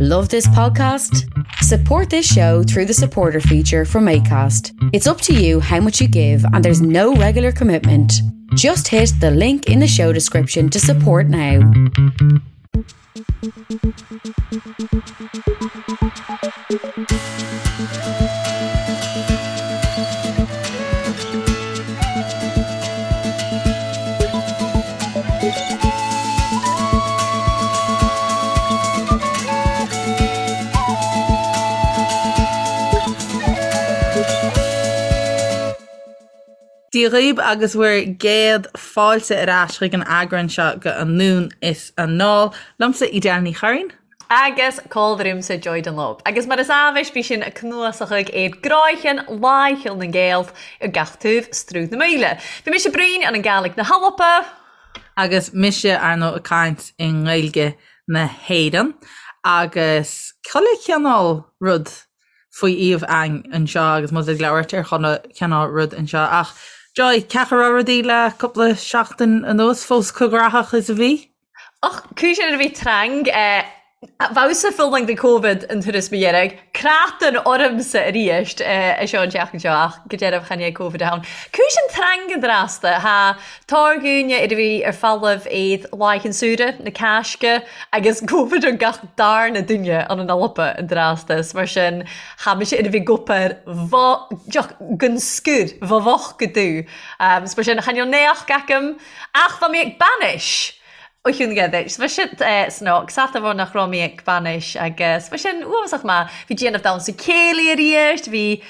Love this podcast? Support this show through the supporter feature from ACAST. It's up to you how much you give, and there's no regular commitment. Just hit the link in the show description to support now. Dia dhaoibh agus bhur gcéad fáilte ar ais chuig an eagrán seo de Anonn is Anall. Liomsa Edel Ní Churraoin. Agus comhluadar Joy Dunlop. Agus mar is amhais bí sinn a' cnuasachadh air gcráicheann láicheall na nGael ar gach taobh Sruth na Maoile. Bhí mise Brín ann an Gàidhlig na hAlba. Agus mise, ar ndóigh, ag caint i nGaeilge na hÉireann. Agus chuile chineál rud faoi iamh a'ainn anseo agus muid ag labhairt ar chuile chineál rud anseo. Ach Joy, cén chaoi a raibh rudaí le cúpla seachtain anuas, fós chomh graitheach is a bhí? Och, cùis ann a bhith trang, bheadh-sa fulang de Covid an turas mo dheirg, cratan ormsa aríst a seo an tseachtain seo ach go dearbh chan é Covid a ann. Cùis ann trang an drasta, tha tàr dhuine air a bhith air falamh aid laighean an tsamhraidh, na Càsga, agus Covid ann gach darna duine ann an Alba an drasta, 's mar sin tha mise air a bhith ag obair deoch gon sgùr, bha bhocht go dubh. 's mar sin chan eil naoch agam Ach bha mi ag banais! Ó chiúin aige. 'S bha siad snoc, sat amháin nach raibh mé ag banais agus bha sin uafásach maith. Bhí déanamh damhsa céilí arís, bhí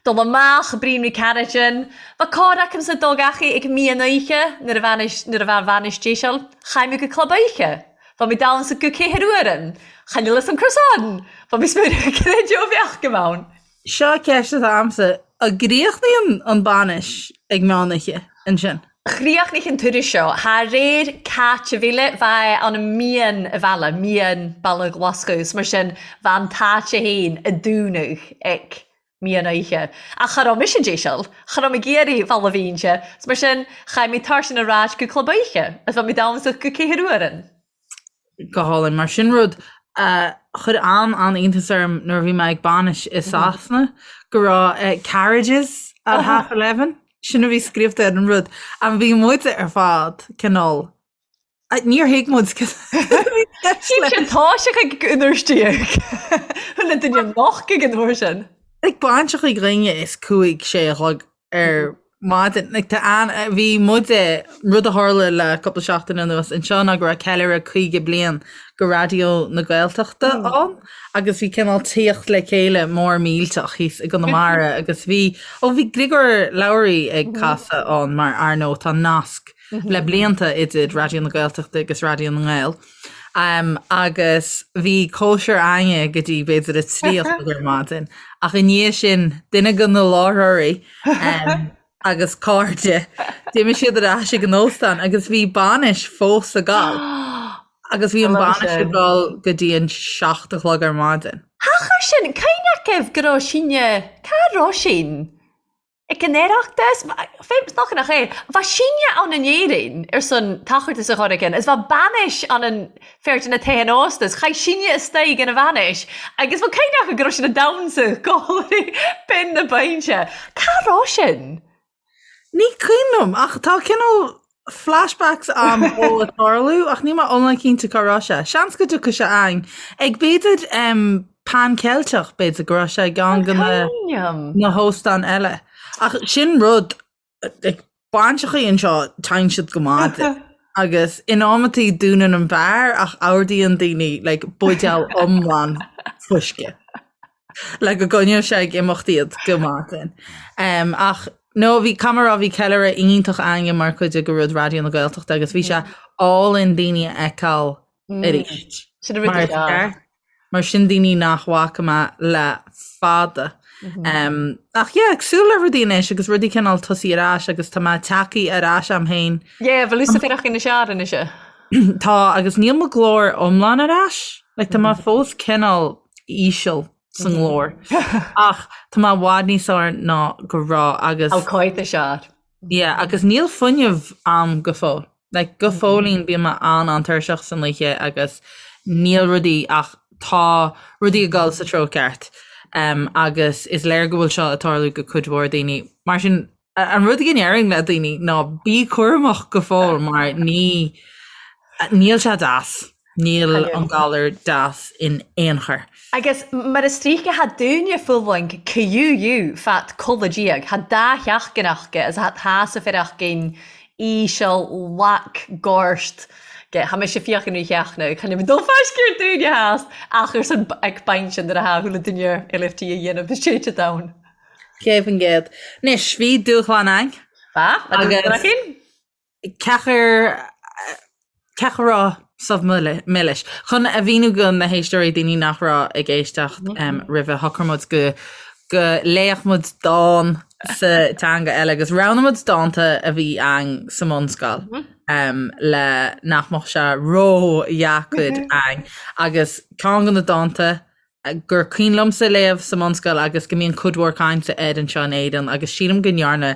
dul amach, Brian McCarrigan. Bha còr agamsa dul gach ag meadhon oidhche nuair a bhainis, nuair a bha an bhainis déiseil. Chaith mé go club oidhche. Bha mi damhsa go ceathair uairean. Chan eil fhios a'm cur san. Bha mi smaoineamh creideamh a bheadh agam ann. Seo ceist atá a'msa, an gcríochnaíonn an bainis ag meán oíche ansin? Chríochnaigh an turas seo thar réir caite mhíle bha ann an mian a mhealladh, mian baile Ghlaschú, 's mar sin bha an t-áite fhéin a dúnadh ag meadhon oíche. Ach cha raibh mise déiseil, cha raibh mé ag iarraidh bhaile Bhínse, 's mar sin chaith mé tairsean ar ais go club oíche, is bha mi damhsach go ceathair uairean. Go hálainn. Mar sin rud a chuir an-an-iontas orm nuair a bhí mé ag bainis i Sasana go raibh carriages at half 11. Sin a bhí scríobhta ar an rud. And bhí muid ar fad cineál níor thuig muid Sin tá sé chuig an uair déag. Chuile duine noch ag an uair sin. Like bainseachaí dhaoine is cúig sé a chlog ar maidin. Like, tá an, bhí muide, rud a tharla le cúpla seachtain anuas anseo ná go raibh ceiliúradh 50 bliain go Raidió na Gaeltachta ann agus bhí cineál tíocht le chéile mór millteach thíos i gConamara agus bhí, ó bhí Griogair Labhruidh ag casadh ann mar ar ndóigh tá nasc le blianta idir Raidió na Gaeltachta agus Raidió na nGael. Um, agus bhí cóisir againne go dtí b'fhéidir a 3 a chlog ar maidin ach i ndiaidh sin duine de na láithreoirí um, agus cairde d'imigh siad ar ais ag an óstán agus bhí bainis fós ag gabháil agus bhí an bainis ag dul go dtí an 7 a chlog ar maidin. Thachair sin, cén agaibh go raibh sinne, cá raibh sin? Ag an Oireachtas? Féach nach nach é. Bha sinne ann in Éirinn ar son tachartas a chur againn is bha bainis ann an fear de na tithe ósta is chaith sinne istoigh ina bhainis agus bha cuimhne acu go raibh sin a damhsa gáirí binn na bainse. Cá raibh sin? Ní cuimhin liom ach tá cineál flashbacks a'm ó ag tarlú ach níl mé iomlán cinnte cá raibh sé. Seans go dtiocfaidh sé a'ainn. Ag b'fhéidir um, Pan Ceilteach b'fhéidir go raibh sé i gceann de na, na hóstáin eile. Ach sin rud ag bainseachaí anseo téann siad go maidin. Agus in amantaí dúnann an beár ach ordaíonn daoine like, buidéal iomlán fuisce. le go gcoinneodh sé ag imeacht iad go maidin. Um, ach no, bhí camera bhí ceiliúradh iontach againne mar chuid de rud Raidió na Gaeltachta agus bhí sé álainn daoine a fheiceáil mm. arís. Sin a rud Mar is fearr. Mar sin daoine nach bhfaca mé le fada. Mhm. Um, ach yeah, ag súil le rudaí anois agus rudaí cineál tosaí ar ais agus tá mé tagtha ar ais am féin. Yeah, bhfuil thusa féireach ina seár anois. Tá agus níl mo ghlór iomlán ar ais. Like, tá mé fós cineál íseal sa nglór. Ach tá mé i bhfad níos fearr ná go raibh agus. Ó cáit is ea. Yeah, agus níl fuinneamh a'm go fóill. Like, go fóillín bíonn mé an-an-tuirseach san oíche agus níl rudaí ach. tá rudaí ag dul sa treo ceart agus is léir go bhfuil seo ag tarlú go cuid mhór daoine. Mar sin, an rud go ndéarfainn le daoine ná bí cúramach go fóill mar ní níl sé deas. Níl an galar deas in aon chor. Agus mar is tríocha tha dúinne fulaingt QUU fat codladh diaidh, tha dá sheachtain aca is tha sa fireachgain íseal lac gorst ge tha mise fiachain rí sheachna chan ag dul faiscéir dúinne theas ach ar son ag baint sin nuair a tha chuile duine LFT a dhéanamh is téite down. 100%. Anois, bhí dúshlán ann. Ba, a dúshlán againn. Ceachar ceachar raibh subh milis. Chun a mhíniú go na héisteoirí, daoine nach raibh ag éisteacht roimhe, shocraigh muid go go léifeadh muid dán sa teanga eile agus roghnaigh muid dánta a bhí ann sa mbunscoil le nach mbeadh sé ródheacair ann agus ceann de na dánta gur cuimhin liomsa léamh sa mbunscoil agus go mbíonn cuid mhór cainte air anseo in Éirinn agus sílim go ndearna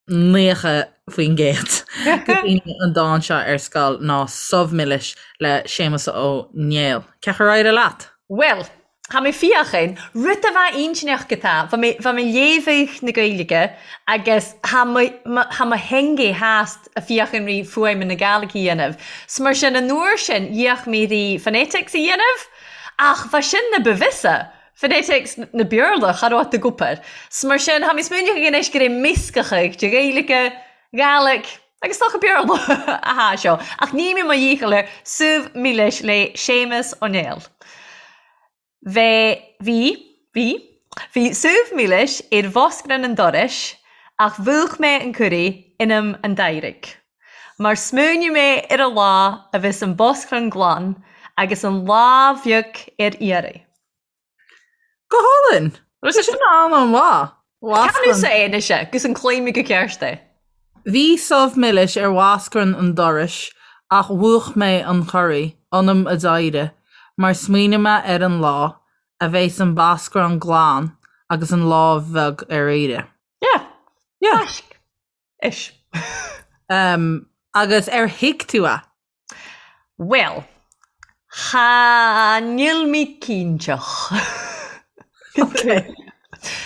90% de dhaoine an dán seo ar scoil ná Subh Milis le Séamus Ó Néill. Cén chaoi ar éirigh leat? Bhuel, tha mi fiachain, rud a bha inntinneach go tá, bha mi, bha mi léamhadh na Gaeilge agus tha mo, mo, tha mo theangaidh theast a fiachain ri fuaim na Gàidhlig a dhéanamh. 'S mar sin an uair sin dheach mi ri phonetics a dhéanamh. Ach bha sin na ba bhfios phonetics na Beurla, cha robh ag obair. 'S mar sin, tha mi smaoineachadh anois gur e meascachadh de Ghaeilge, Gàidhlig agus 's dòcha Beurla a tha seo. Ach ní mi mo dhícheall air Subh Milis le Séamus Ó Néill. Bhe, bhí, bhí, bhí subh milis ar bhoscran an dorais ach mhúch mé an curraidh ionam an d'éirigh. Mar smaoinigh mé ar an lá a bheas an boscrán glan agus an lámh bheag ar iarraidh. Go hálainn! Tá sin an-mhaith. Can thusa é anois agus an gcluin mi go ceart é. Bhí subh milis ar bhoscrán an dorais ach mhúch mé an corraí ionam a d'éirigh mar smaoinigh mé ar an lá a bheas an boscrán glan agus an lámh bheag ar iarraidh. Yeah. Yeah. Taisc. Ish. Um, agus ar thuig tú é? Bhuel, cha níl mi cinnteach. Ok.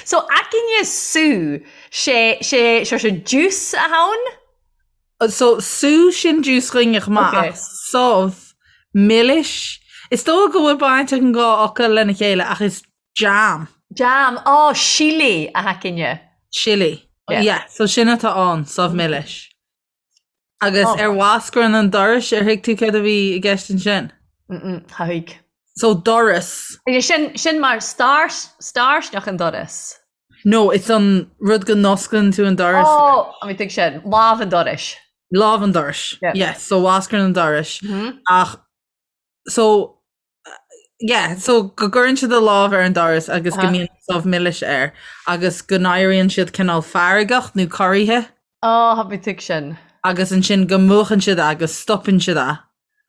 So, againne sú, sé, sé, sé, sé juice a tha ann? So, sú sin juice againne chomh maith, Ok. ach subh, milis, is dóigh go bhfuil baint ag an dhá fhocal lena chéile ach is Jam. Jam, Á, sillí a tha againne. Sillí. Yeah. Yeah, so sin atá ann, subh milis. Agus Oh. ar bhoscrán an dorais, ar thuig tú céard a bhí i gceist ansin? Mm-mm, cha thuig. So doras. Agus sin, sin mar star, starsneach an doras. No, it's an rud go n-osclaíonn tú an doras. Ó, a mi tuig sin, lámh an dorais. Lámh an dorais. Yeah. Yes, so bhoscrán an dorais. Mm-hmm. Ach, so Yeah, so go gcuireann siad a lámh ar an doras agus go mbíonn subh milis air agus go n-éiríonn siad cineál feargach nó corraithe. Á, tha mi tuig sin. Agus ansin go múchann siad é agus stopann siad é.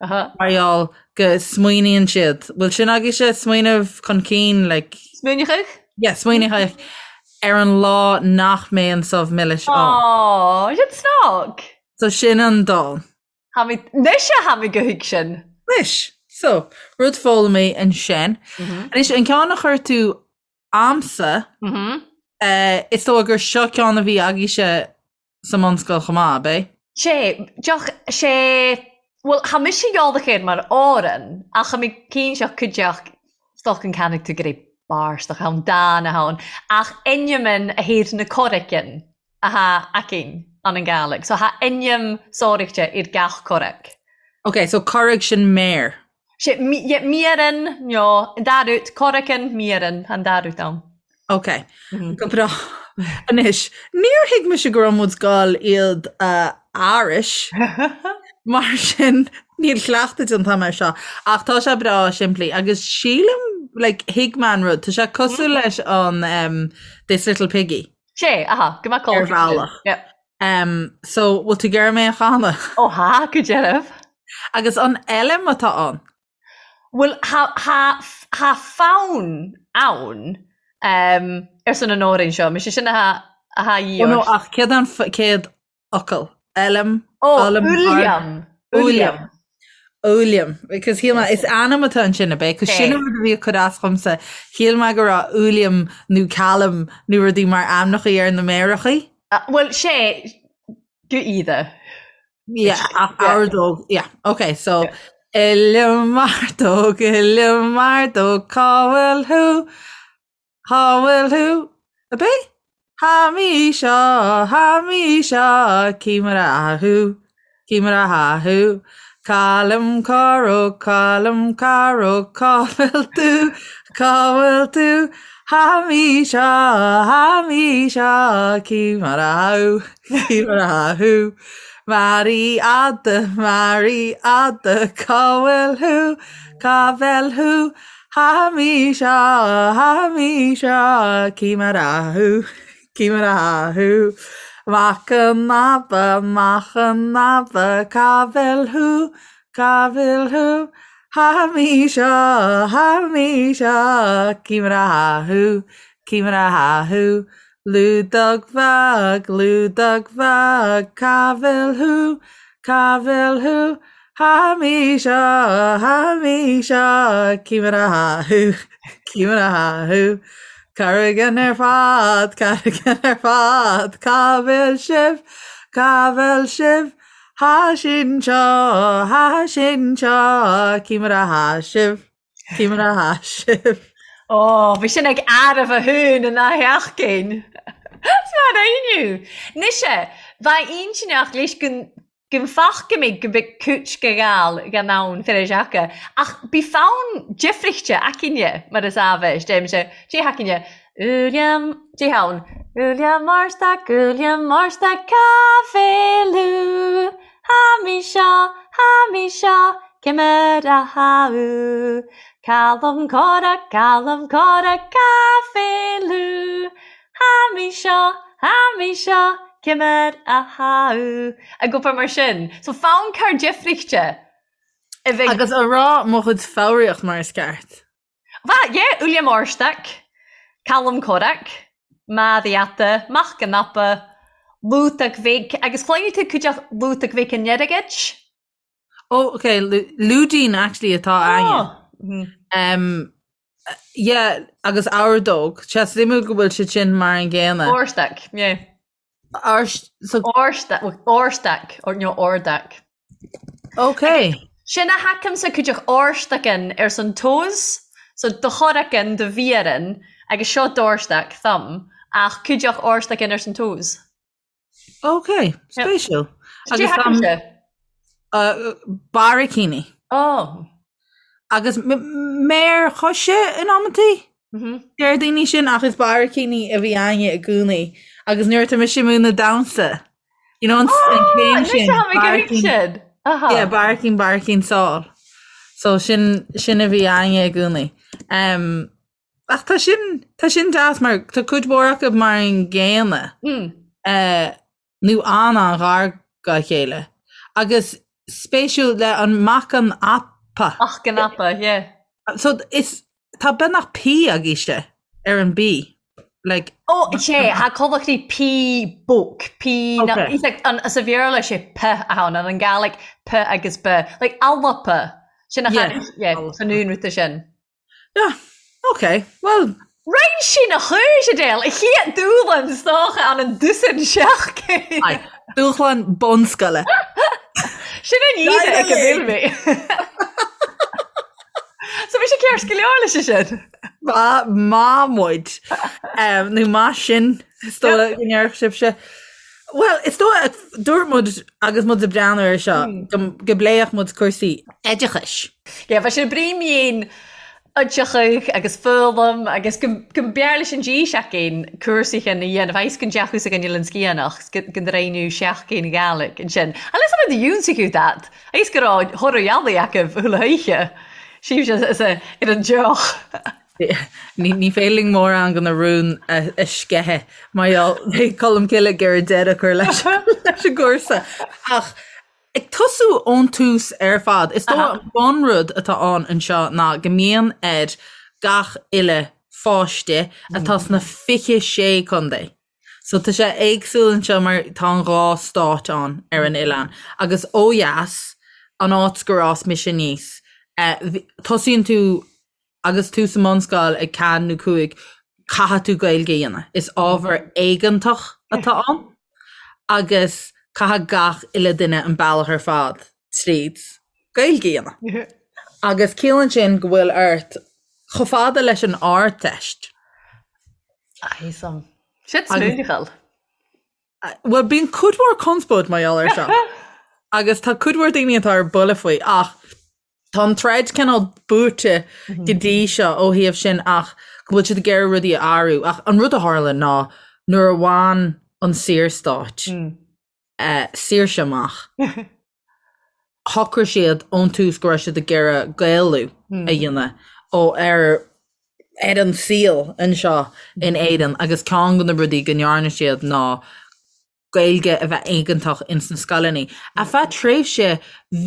Mar gheall go smaoiníonn siad. Bhfuil sin agaibhse smaoineamh chun cinn, like. Smaoineachadh? Yeah, smaoineachadh ar an lá nach mbeidh an subh milis ann. Á, sin snag! So sin an dán. Tha mi, anois a tha mi gu thuig sin. Anois, so, rud foghlamtha ansin. Anois, an ceann a chuir tú a'msa, is dóigh gur seo ceann a bhí agaibhse sa mbunscoil chomh maith, ab é? Sé, deoch, sé, bhuel, tha mise eòlach air mar òran, ach tha mi cinnteach cuideachd 's dòcha an cànfaidh thu gur e bàrstach a tha ann, dàn a tha ann, ach ainmean a thaobh na corraicean. a tha againn ann an Gàidhlig. So tha ainm sòraichte air gach corraig. Ok, so corraig sin méar. Sé, yeah, mearan, no, an dà rud, corraicean, mearan, an dà rud ann. Ok, go breá. Anois, níor thuig mise go raibh muid goil iad a aithris, mar sin níl cleachtadh déanta agam air seo, ach tá sé breá simplí agus sílim, like, thuig mé an rud, tá sé cosúil leis an um, This Little Piggy. Sé, aha, go mbeadh Ar bhealach. Yep. Um, so, bhfuil tú ag iarraidh mé a chanadh? Ó tha, go deimhin. Agus an fheilm atá ann? Bhuel, tha, tha, tha fonn ann um, ar son an òrain seo. Mise sin a tha, a tha Ó no, ach céard an chéad fhocal? Fheilm? Ó, Uilleam. Uilleam. Uilliam, because shíl mé, is ainm atá ansin, ab é? Cos sin an rud a bhí ag cur as dhomsa. Shíl mé go raibh Uilliam nó Callum nó rudaí mar ainmneachaí ar na méarachaí. Bhuel, sé, go iad. Yeah, ach ordóg, yeah, ok, so Uilliam Ordóg, Uilliam Ordóg, cá bhfuil thú? Cá bhfuil thú? Ab é? Tha mi seo, tha mi seo, cì mar atha thu, cì mar atha thu. Calum Corróg, Calum Corróg, cá bhfuil tú, cá bhfuil tú? Tha mi seo, tha mi seo, cì mar atha thu, cì mar atha thu. Màiri Fhada, Màiri Fhada, cá bhfuil thú, cá bhfuil thú? Tha mi seo, tha mi seo, cì mar atha thu, cì mar atha thu. Mac an Aba, Mac an Aba, cá bhfuil thú, cá bhfuil thú? Tha mi seo, tha mi seo, cì mar atha thu, cì mar atha thu. Lúdach Bheag, Lúdach Bheag, cá bhfuil thú, cá bhfuil thú? Tha mi seo, tha mi seo, cì mar atha thu, cì mar atha thu. Carraigean ar fad, carraigean ar fad, cá bhfuil sibh, cá bhfuil sibh? Tha sinn seo, tha sinn seo, cì mar atha sibh, cì mar atha sibh. Ó, bhí sin ag arbh a thún in áth Eachcéin. Is mar inniu. Nise, bheadh intinneach leis go Go bhfaca mé go mbeadh cúit go ghal gan ann fir a sheaca, ach bí fonn deifrichte aicinne mar is ábhais, deirimse, Dé haicinne, Uilliam, Dé hann, Uilliam Márstac, Uilliam Márstac, cá bhfuil thú? Tha mi seo, tha mi seo, cì mar atha thu? Calum Corrach, Calum Corrach, cá bhfuil thú? Tha mi seo, tha mi seo, cì mar atha thu? Ag obair mar sin. So fonn cur deifrichte a bheidh. Agus a rá mo chuid foghraíocht mar is ceart. Bha, yeah, Uilleam Àrstac, Calum Corrach, Màiri Fhada, Mac an Aba, Lúdach Bhig, agus chluinnfidh tú cuideachd Lúdach Bhig an Eirgid? Oh, ok, Lúidín actually atá againne. Um, yeah, agus ordóg. Sé suimiúil go bhfuil siad sin mar an gcéanna. Àrstac, yeah. Árst, so... Àrstac, Àrstac, or no, Òrdac. Ok. Sin a thacaimse cuideachd Àrstacan ars an toes, so do choracan, do mhéaran, agus seo d'Àrstac, thumb, ach cuideachd Àrstacan ars an toes. Ok, spéisiúil. Agus tá barraicíní. Oh. Agus méar choise in amantaí? Mhm. Deir daoine sin ach is barraicíní a bhí againne i gcónaí. Agus nuair atá mise ag múineadh damhsa, you know, an chéim sin. Barraicín. Yeah, barraicín, barraicín sál. So sin, sin a bhí againne i gcónaí. Um, Ach tá sin, tá sin deas mar tá cuid mhór acu mar an gcéanna. Mm. Eh, nó an-an-ghar dá chéile. Agus spéisiúil le an mac an apa. Mac an apa, yeah. So is, tá beagnach P agaibhse ar an B. Like, Ó, sé, tha collachtaí P bóc, P na, Okay. he's like, an, sa Bhéarla sé P a ann, an an Gàidhlig P agus B. Like, alpa. Sin a Yeah. yeah, san únrúta sin. Yeah, ok, well. Roinn sí na chúis, Adele, a chéad dúshlán is dócha an an dúsán seachtain. Aye, dúshlán bunscoile. Sin an íde ag a bhfuil mé. So bhí sé ceart go leor leis sin. Má má muid nó má sin is dóigh go ndéarfadh sibhse. Well, is dóigh dúirt muid agus muid ag breathnú air seo go go bpléifeadh muid cúrsaí oideachais. Yeah, bheadh sé brí-mhéin oideachais agus foghlaim agus go go mb'fhearr leis an dí seachtain cúrsaí chin a dhéanamh agus go ndeachthas againn Oileán Sgiathanach 's go go ndreimhniú seachtain Ghaelic ansin. Unless I'm in the ionsaí that agus go raibh thoradh ealaí acu chuile oíche. Sílim is ar an deoch. Ní féidir linn mórán de na rúin a sceitheadh mar gheall beidh Colm Cille ag iarraidh deireadh a chur leis an gcúrsa. Ach ag tosú ón tús ar fad, is dóigh an bunrud atá ann anseo ná go mbíonn ar gach uile pháiste atá sna 26 contae. So tá sé éagsúil anseo mar tá an dhá stát ann ar an oileán agus ó dheas. an áit gur fhás mise aníos, tosaíonn tú agus tú sa mbunscoil ag 4 nó 5, caithfidh tú Gaeilge a dhéanamh. Is ábhar éigeantach atá ann agus caithfidh gach uile duine an bealach ar fad tríd Gaeilge a dhéanamh. Agus ciallaíonn sin go bhfuil ort chomh fada leis an Ardteist. Aye, Sin smaoineachal. Bhuel, bíonn cuid mhór conspóid mar gheall air seo. Agus tá cuid mhór daoine atá ar buile faoi ach tá an troid cineál buaite go dtí seo ó thaobh sin ach go bhfuil siad ag iarraidh rudaí a athrú. Ach an rud a tharla ná nuair a bhain an Saorstát saoirse amach, shocraigh siad ón tús go raibh siad ag iarraidh Gaelú a dhéanamh ó ar ar an saol anseo in Éirinn agus ceann de na rudaí go ndearna siad ná Gaeilge a bheith éigeantach ins na scoileanna. Ar feadh tréimhse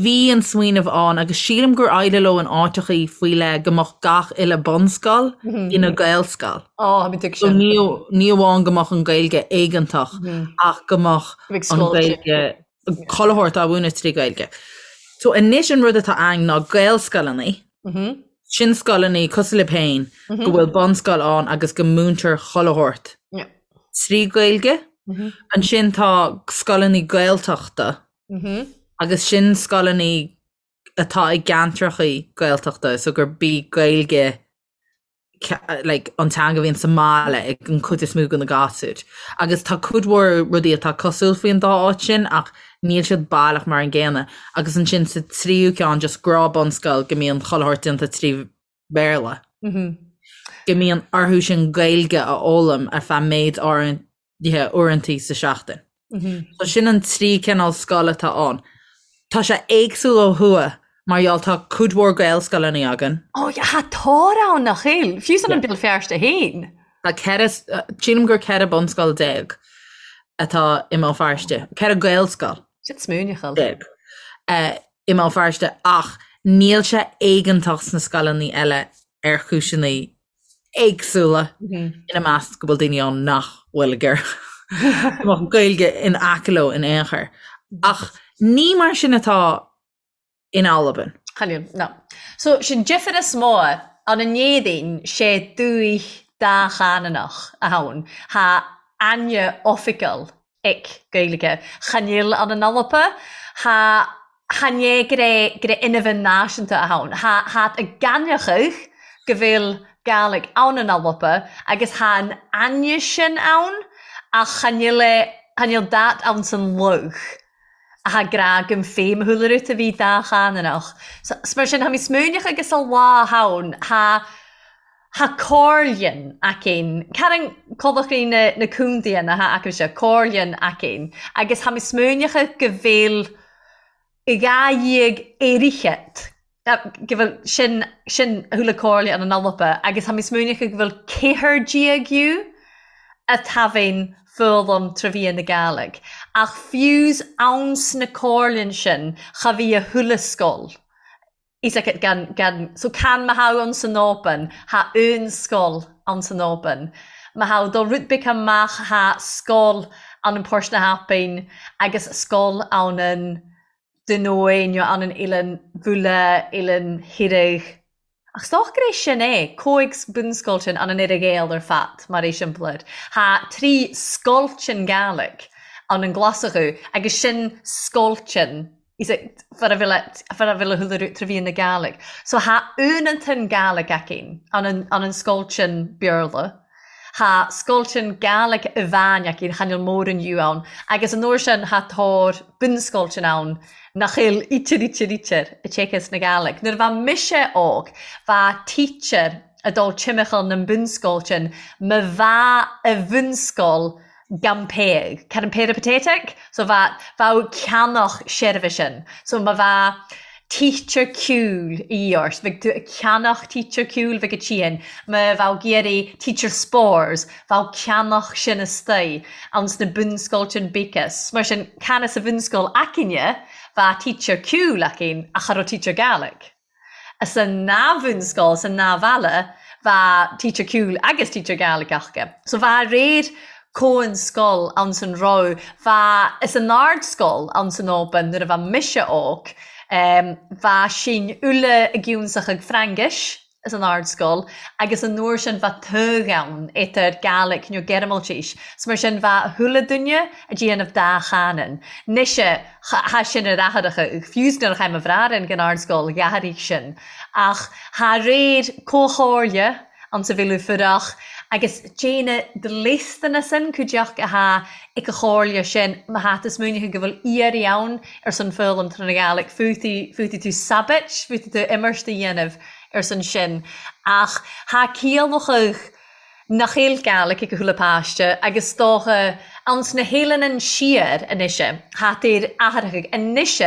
bhí an smaoineamh ann agus sílim gur éirigh leo in áiteachaí faoi leith go mbeadh gach uile bunscoil ina Gaelscoil. Ó, bhí So ní ní amháin go mbeadh an Ghaeilge éigeantach ach go mbeadh an Ghaeilge chuile shórt á mhúineadh trí Ghaeilge. So anois an rud atá ann ná Gaelscoileanna, sin scoileanna cosúil libh féin go bhfuil bunscoil ann agus go múintear chuile shórt trí Ghaeilge. Ansin tá scoileanna Gaeltachta agus sin scoileanna atá i gceantrachaí Gaeltachta so gurb í Gaeilge like, an teanga a bhíonn sa mbaile ag an chuid is mó de na gasúir. Agus tá cuid mhór rudaí atá cosúil faoin dá áit sin ach níl siad baileach mar an gcéanna. Agus ansin sa tríú ceann just gnáth bunscoil go mbíonn chuile shórt déanta trí Bhéarla. Go mbíonn orthu sin Gaeilge a fhoghlaim ar feadh méid áirithe uaireantaí sa seachtain. So sin an trí cineál scoil atá ann. Tá sé éagsúil ó thuaidh mar gheall tá cuid mhór Gaelscoileanna againn. Ó yeah, tha tòr ann nach eil? Fiù 's ann an Beal Feirste fhèin. Tá 14, sílim gur 14 bunscoil atá i mBéal Feirste, 14 Gaelscoil. Sin smaoineachal. I mBéal Feirste ach níl sé éigeantach sna scoileanna eile ar chúiseanna éagsúla, ina measc go bhfuil daoine ann nach bhfuil ag iarraidh go mbeadh Gaeilge in aice leo in aon chor. Ach ní mar sin atá in Albain. Chan eil, na. So, sin difir as mò ann an Èirinn 's e dùthaich dà-chànanach a th' ann. Tha aithne oifigeil aig Gaeilge. Chan eil ann an Alba. Tha chan e gur e gur e inmheadhan nàiseanta a th' ann. Tha thad ag gainneachadh go bheil Gàidhlig ann an Alba agus tha an aithne sin ann ach chan eil e chan eil dad ann san lugh a tha ag ràdh gum feidhm a chuile rud a bhith dà-chànanach. 'S mar sin tha mi smaoineachadh agus a lá ann tha Tha comhairlean againn, Carran Codlachraí na na contaetha atá acusa, comhairlean againn, agus tha mi smaoineachadh go bheil 12 fhichead, go bhfuil sin sin a chuile comhairle ann an Alba, agus tha mi smaoineachadh go bhfuil 14 dhiobh a taibheinn foghlaim trò mheadhan na Gàidhlig. Ach fiú's ann sna comhairlean sin cha bhí a chuile sgoil. Is ea, gan, gan, so can ma tha ann san Albain, tha aon sgoil ann san Albain. Ma tha dol rud beag amach tha sgoil ann an Port na hAlbain agus sgoil ann an Dùn Oe nó ann an Eilean Bhuaile, Eilean Thìreig. Ach 's dòcha gur é sin é, còig bunsgoiltean ann an Earra-Ghàidheal air fad, mar eiseamplair. Tha trì sgoiltean Gàidhlig ann an Glaschu agus sin sgoiltean Is é far a bhfuil a chuile rud trò mheadhan na Gàidhlig. So tha aonantan Gàidhlig againn ann an ann an sgoiltean Beurla. Tha sgoiltean Gàidhlig amhàin againn, chan eil mòran dhiobh ann, agus an uair sin tha tòr bunsgoiltean ann nach eil ítear ítear ítear a téacs na Gàidhlig. Nuair a bha mise óg bha teacher a' dol timcheall nan bunsgoiltean ma bha a bhunsgoil gan péag, carran peripatetic, so bha, bheadh ceannach seirbhisean, so ma bha teacher ceoil a dhíth ort, bheadh tú ag ceannach teacher ceoil bheadh a tSian, ma bheadh ag iarraidh teacher spores, bheadh ceannach sin astoigh ann sna bunscoiltean bíceas, mar sin can sa bhunscoil againne bha teacher ceoil againn ach cha raibh teacher Gaelic. Sa ndá bhunscoil, sa ndá bhaile, bha teacher ceoil agus teacher Gàidhlig aca. So bha réir comhan sgoil ann san raibh, bha, is an ardscoil ann san Albain nuair a bha mise óg. Bha sinn uile ag ionnsachaidh Frangais as an Ardscoil agus an uair sin bha togha ann eadar Gàidhlig nó Gearmaltis. 'S mar sin bha chuile duine a' déanamh dá chanann. 'Nois tha sin ar athaireacha, fiú 's nuair a chaith mo bhrathair ag an Ardscoil dh'athairigh sin. Ach tha réir comhchomhairle anns a' Mhíleadh Fuireach agus déana dlisteana sin cuideachta athá ag a chomhairle sin má thá tú smaoineachadh go bhfuil iarraidh ann ar son foghlaim trá na Gàidhlig féadfaidh tú sabait, féadfaidh tú imirt a dhéanamh ar son sin ach thá ciallachadh nach eil Gàidhlig ag a chuile páiste agus 's dócha anns na h-eileanan Siar anois thá tair athraitheach anois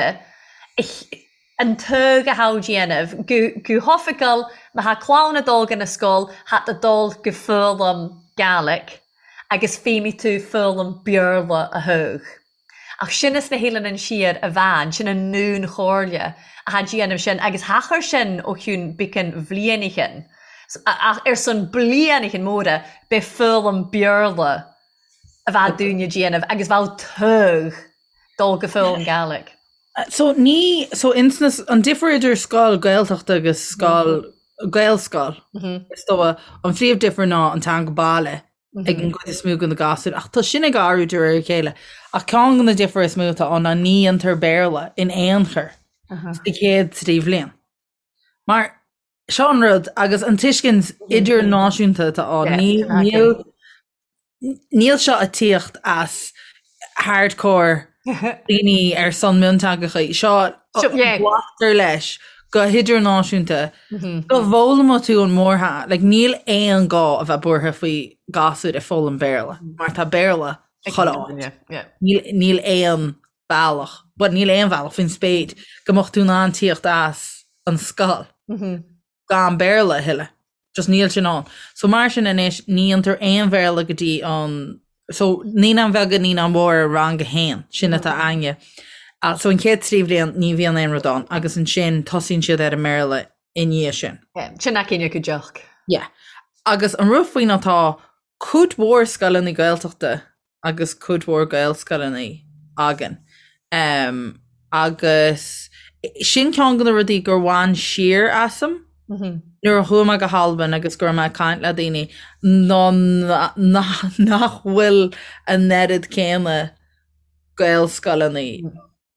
an togha athá déanamh go go hoifigiúil má thá clann a' dul go na sgoil thá tú dul go foghlaim Gàidhlig agus feidhmidh tú foghlaim Beurla a thogh. Ach sin as na hEileanan Siar a bhean, sin an ndún-chomhairle athá déanamh sin agus thachair sin ó chionn beacan bhlianaichin. Ach ar son blianaichin móra b'é foghlaim Beurla a bheadh daoine déanamh agus bheadh togha dul go foghlaim Gàidhlig. So ní, so ins na, an difear idir scoil Gaeltachta agus scoil, Gaelscoil, is dóigh, an phríomh difear ná an teanga baile ag an gcuid is mó de na gasúir, ach tá sin ag athrú de réir a chéile. Ach ceann de na difear is mó atá ann ná ní dhéantar Béarla in aon chor sa chéad trí bhliain. Mar seo an rud agus an tuiscint idirnáisiúnta atá ann, níl níl seo ag tíocht as hardcore daoine ar son mionteangacha, seo glactar leis go hidirnáisiúnta go bhfoghlaimeoidh tú an mórtheanga, like níl aon gá a bheith buartha faoi gasúir ag foghlaim Béarla mar tá Béarla chuile áit. Níl aon bealach, bhuel níl aon bhealach faoin spéir go mbeadh tú in ann tíocht as an scoil gan Béarla a thuilleadh. Just níl sin ann. So mar sin anois ní dhéantar aon Bhéarla go dtí an, so naíonáin bheaga, naíonáin mhóra, rang a haon, sin atá againne. So an chéad trí bhliain ní bhíonn aon rud ann agus ansin tosaíonn siad ar an mBéarla i ndiaidh sin. Sin aicín go deoch. Yeah. Agus an rud faoi ná tá cuid mhór scoileanna Gaeltachta agus cuid mhór Gaelscoileanna againn. Agus sin ceann de na rudaí gur bhain siar asam nuair a chuaigh mé go hAlbain agus go raibh mé ag caint le daoine ná nach bhfuil an oiread céanna Gaelscoileanna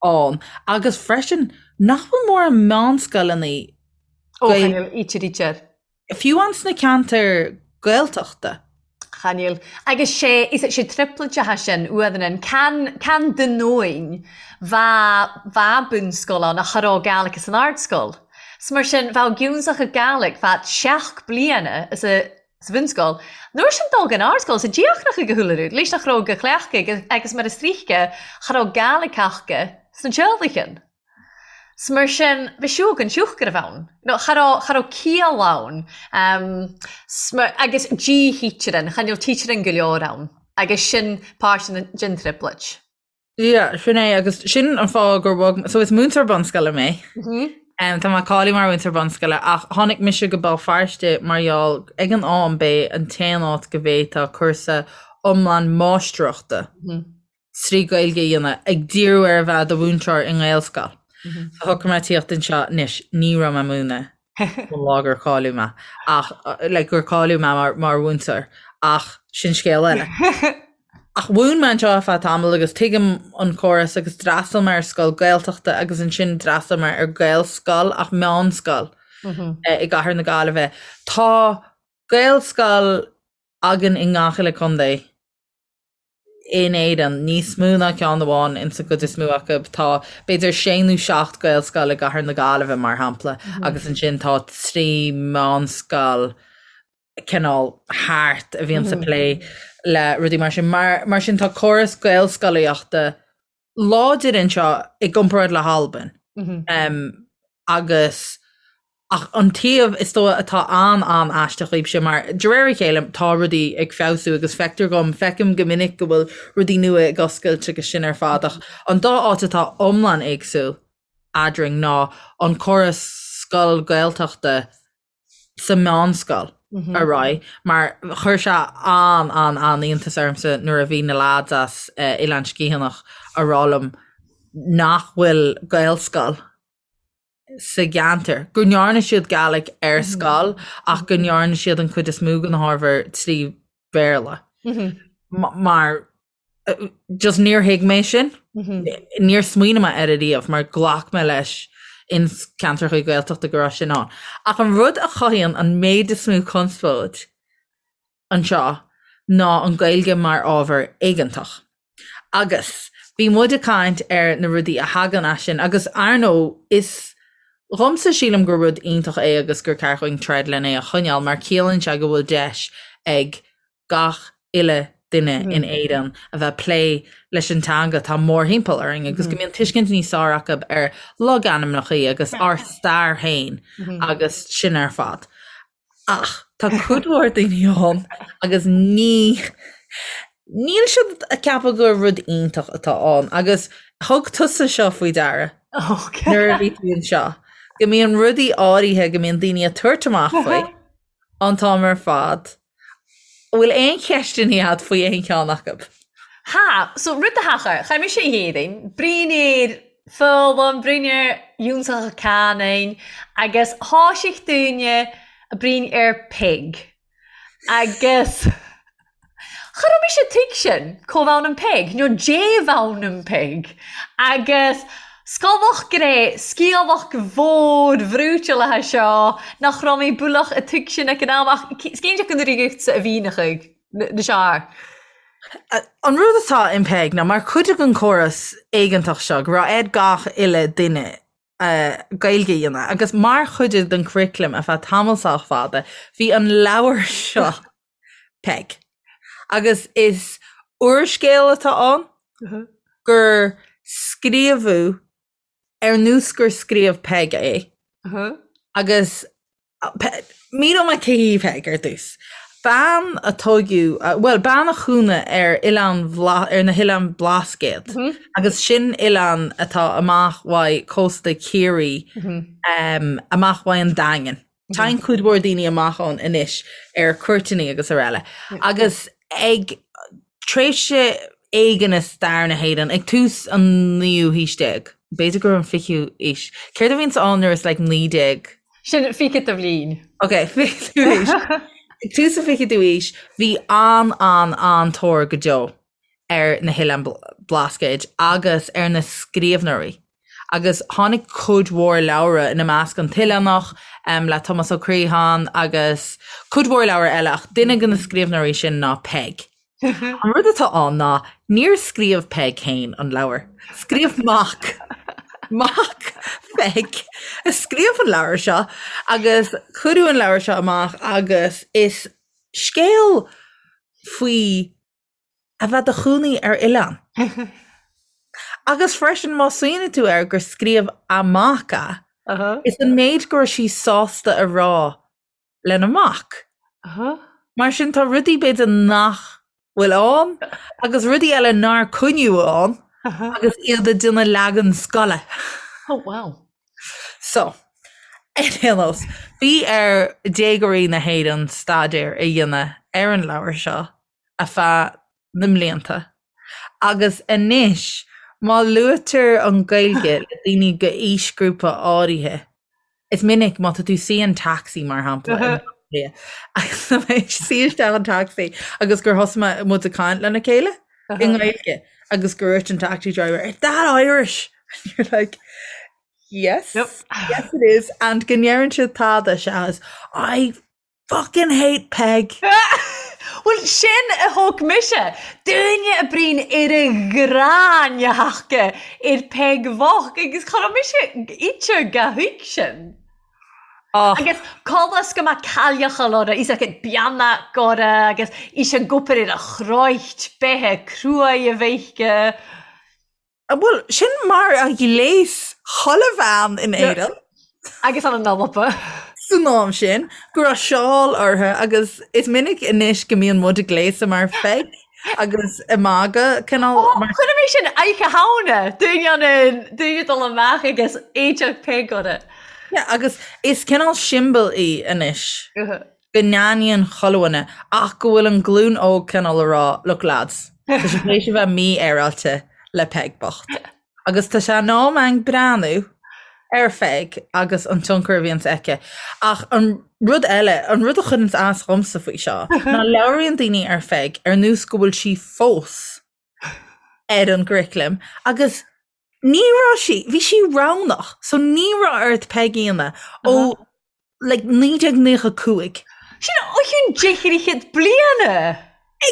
ann agus freisin nach bhfuil mórán meánscoileanna Ó, chan eil, ítear, ítear. Fiú ann sna ceantair Gaeltachta. Chan eil. Agus sé, is sé trioblóideacha sin uaidh can, can Dunoin bha, bha bunscoil ann ach cha raibh Gàidhlig san ardscoil. 'S mar sin, bheadh giúnsacha Gàidhlig fad seacht bliana is a, sa bhunscoil. Nuair sin dul gon ardscoil, sa díochrach ag a shúile rud, leis nach raibh go chleachtadh agus mar is tríche, cha raibh Gàidhlig aca sna teaghlaigh. 'S mar sin, bhí siúg an siúch go raibh ann. No, cha raibh, cha raibh ciall ann. 'S mar, agus dí-thítear chan eil títear go leor ann. Agus sin páirt den, den trioblóid. Yeah, sin é, agus sin an fáth gur bhog, so is múinteoir bunscoile mé. Tá mé cáilithe mar mhúinteoir bunscoile, ach tháinig mise go Béal Feirste mar gheall ag an am b'é an t-aon áit go bhféadfá cúrsa iomlán máistreachta 3 Gaeilge a dhéanamh, ag díriú ar a bheith i do mhúinteoir i nGaelscoil. So shocraigh mé tíocht anseo anois, ní raibh mé ag múineadh ón lá gur cáiliú mé, ach like gur cáiliú mé mar, mar mhúinteoir, ach sin scéal eile. Ach mhúin mé anseo ar feadh tamaill agus tuigim an córas agus d'fhreastail mé ar scoil Gaeltachta agus ansin d'fhreastail mé ar Gaelscoil ach meánscoil i gCathair na Gaillimhe. Tá Gaelscoil againn i ngach uile contae. in Éirinn, níos mó ná ceann amháin insa gcuid is mó acu. Tá b'fhéidir sé nó seacht Gaelscoil i gCathair na Gaillimhe, mar shampla, agus ansin tá trí mheánscoil cineál thart a bhíonns ag plé le rudaí mar sin. Mar sin tá córas Gaelscolaíochta láidir anseo i gcomparáid le hAlbain. Agus ach an taobh is dóigh atá an-an-aisteach dhaoibhse mar de réir a chéile tá rudaí ag feabhsú agus feictear dhom, feicim go minic go bhfuil rudaí nua ag oscailt agus sin ar fad ach an dá áit atá iomlán éagsúil eadrainn ná an córas scoil Gaeltachta sa meánscoil ar aghaidh mar chuir sé an-an-an-iontas ormsa nuair a bhí na lads as Oileán Sgitheanach a rá liom nach bhfuil Gaelscoil. sa gceantar, go ndearna siad Gàidhlig ar scoil ach go ndearna siad an chuid is mó den ábhar trí Bhéarla. Mar just níor thuig mé sin, níor smaoinigh mé air ariamh mar ghlac mé leis in ceantracha Gaeltachta go raibh sin ann. Ach an rud a chothaíonn an méid is mó conspóid anseo ná an Ghaeilge mar ábhar éigeantach. Agus bhí muid ag caint ar na rudaí a thagann as sin agus ar ndóigh is dhomsa sílim gur rud iontach é agus gur ceart dhúinn troid len é a choinneáil mar ciallaíonn sé go bhfuil deis ag gach uile duine in Éirinn a bheith ag plé leis an teanga atá mórthimpeall orainn agus go mbíonn tuiscint níos fearr acu ar logainmneacha agus ár stair féin agus sin ar fad. Ach tá cuid mhór daoine ann agus ní níl siad ag ceapadh gur rud iontach atá ann agus thug tusa seo faoi deara nuair a bhí tú anseo, go mbíonn rudaí áirithe go mbíonn daoine ag tabhairt amach faoi an t-am ar fad. An bhfuil aon cheisteanna agat faoi aon cheann acu? Tha, so rud a thachair, chaith mise a dhéadaoin, bruíon ar foghlaim, bruíon ar fhiúntacha canúin agus thoisigh daoine a bruíon ar Peig. Agus cha raibh mise tuig sin, có bhonn an Peig, nó dé bhonn an Peig. Agus Scolach gré sciamhach mhór bhrúiteálaithe seo nach raibh mé bualach a tuig sin ag an am ach cinnte go n-uireachta a bhí na chuig na seár. An rud atá in Peig ná mar chuid den chóras éigeantach seo go raibh ar gach uile duine Gaeilge a dhéanamh agus mar chuid den curriculum ar feadh tamall sách fada bhí an leabhar seo Peig. Agus is úrscéal atá ann gur scríobhadh ar nós gur scríobh Peig é. Agus míneoidh mé cé hí Peig ar dtús. Bean a tóigeadh, bhuel, bean a chónaigh ar oileán ar na hOileáin Blascaod agus sin oileán atá amach uaidh cósta Chiarraí, amach uaidh an Daingean. Téann cuid mhór daoine amach ann anois ar cuairteanna agus araile. Agus ag tréimhse éigin i stair na hÉireann, ag tús an naoú haois déag, b'fhéidir gur an fichiú aois, céard a bhíonns ann nuair is like 19? Sin fichead de bhliain. Ok, fichiú aois. Ag tús an fichiú aois, bhí an-an-an-tóir go deo ar na hOileáin Blascaoid agus ar na scríbhneoirí agus tháinig cuid mhór leabhra, ina measc An tOileánach le Tomás Ó Criomhthain agus cuid mhór leabhar eile ach duine de na scríbhneoirí sin ná Peig. An rud atá ann ná níor scríobh Peig féin an leabhar, scríobh mac mac Pheig a scríobh an leabhar seo agus cuireadh an leabhar seo amach agus is scéal faoi a bheith do chónaí ar oileán. Agus freisin má smaoiníonn tú air gur scríobh a mac é, is an méid go raibh sí sásta a rá lena mac. Mar sin tá rudaí b'fhéidir nach bhfuil ann agus rudaí eile nár coinníodh ann agus iad ag déanamh leagan scoile. Oh wow. So, ar aon nós, bhí ar déagóirí na hÉireann staidéar a dhéanamh ar an leabhar seo ar feadh na mblianta agus anois má luaitear an Ghaeilge le daoine de aoisghrúpa áirithe, is minic má tá tú suí in taxi mar shampla in Baile Átha Cliath agus tá mé ag suí isteach an taxi agus gur thosaigh mé muid ag caint lena chéile i nGaeilge agus gur dúirt an taxi driver, Is that Irish? And you're like, Yes, Yep. yes it is. And go ndeireann siad tada seachas I Fucking hate Peig! Bhuel, sin a thóg mise! Duine a bruíon ar a ghráin a thaca ar Peig bhocht agus cha raibh mise ite ga thuig sin. Och. Agus conas go mbeadh cailleacha lora, is acu beannach gora agus is an gcupar ar a chroit beithe cruaidh a bheithce. Bhuel, sin mar a ghléas chuile bhean in Éirinn. Agus an Alba. San am sin, go raibh seál orthu agus is minic anois go mbíonn muid ag gléasadh mar Pheig agus ag magadh cineál mar. Chuir mé sin oidhche Shamhna, duine an duine dul amach agus éideach Peig orthu. Yeah, agus is cineál siombail í anois. go n-aithníonn chuile dhuine ach go bhfuil an glúin óg cineál a rá look lads, tá sé tar éis a bheith mífhéaráilte le Peig bocht. Agus tá sé in am againn breathnú. Ar Pheig agus an tionchar a bhíonns aici. Ach an rud eile, an rud a chuireanns as dhomsa faoi seo, ná labhraíonn daoine ar Pheig ar nós go bhfuil sí fós ar an gcuraclam agus ní raibh sí, bhí sí roghnach, so ní raibh ort Peig a dhéanamh ó like 1995. Sin ó chionn deich bliana!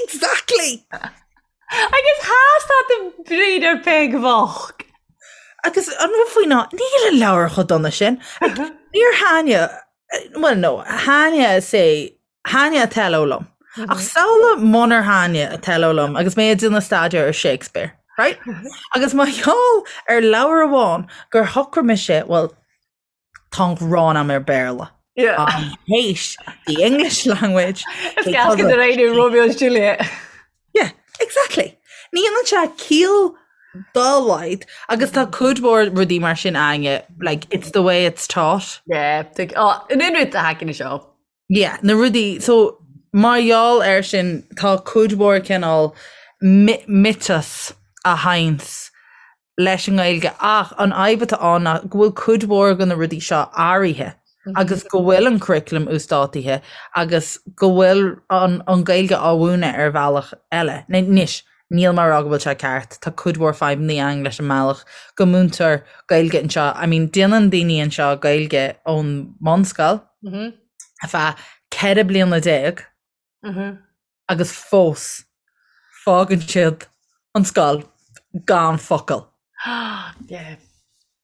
Exactly! Agus theastaigh an bhriain ar Peig bhocht. Agus an rud faoi ná, níl an leabhar chomh dona sin. Níor thaitnigh, well no, thaitnigh sé, thaitnigh Othello liom. Ach samhlaigh munar thaitnigh Othello liom agus mé ag déanamh staidéar ar Shakespeare, right? Agus mar gheall ar leabhar amháin gur shocraigh mise, well, Tá an ghráin a'm ar Béarla. Yeah. I hate the English language. Is gas go raibh Romeo and Juliet. Yeah, exactly. Ní dhéanann sé ciall dá laghad agus tá cuid mhór rudaí mar sin againne, like, it's the way it's taught. Yeah, oh, in aon rud a thagann seo. Yeah, na rudaí, so mar gheall air sin tá cuid mhór cineál miotas a théanns leis an nGaeilge ach an fhadhb atá ann ná go bhfuil cuid mhór de na rudaí seo athraithe agus go bhfuil an curriculum uasdátaithe agus go bhfuil an an Ghaeilge á mhúineadh ar bhealach eile. Anois, níl mé ag rá go bhfuil sé ceart, tá cuid mhór fadhbanna ann leis an mbealach go múintear Gaeilge anseo. I mean, déanann daoine anseo Gaeilge ón mbunscoil, ar feadh 14 bliana agus fós fágann siad an scoil gan focal.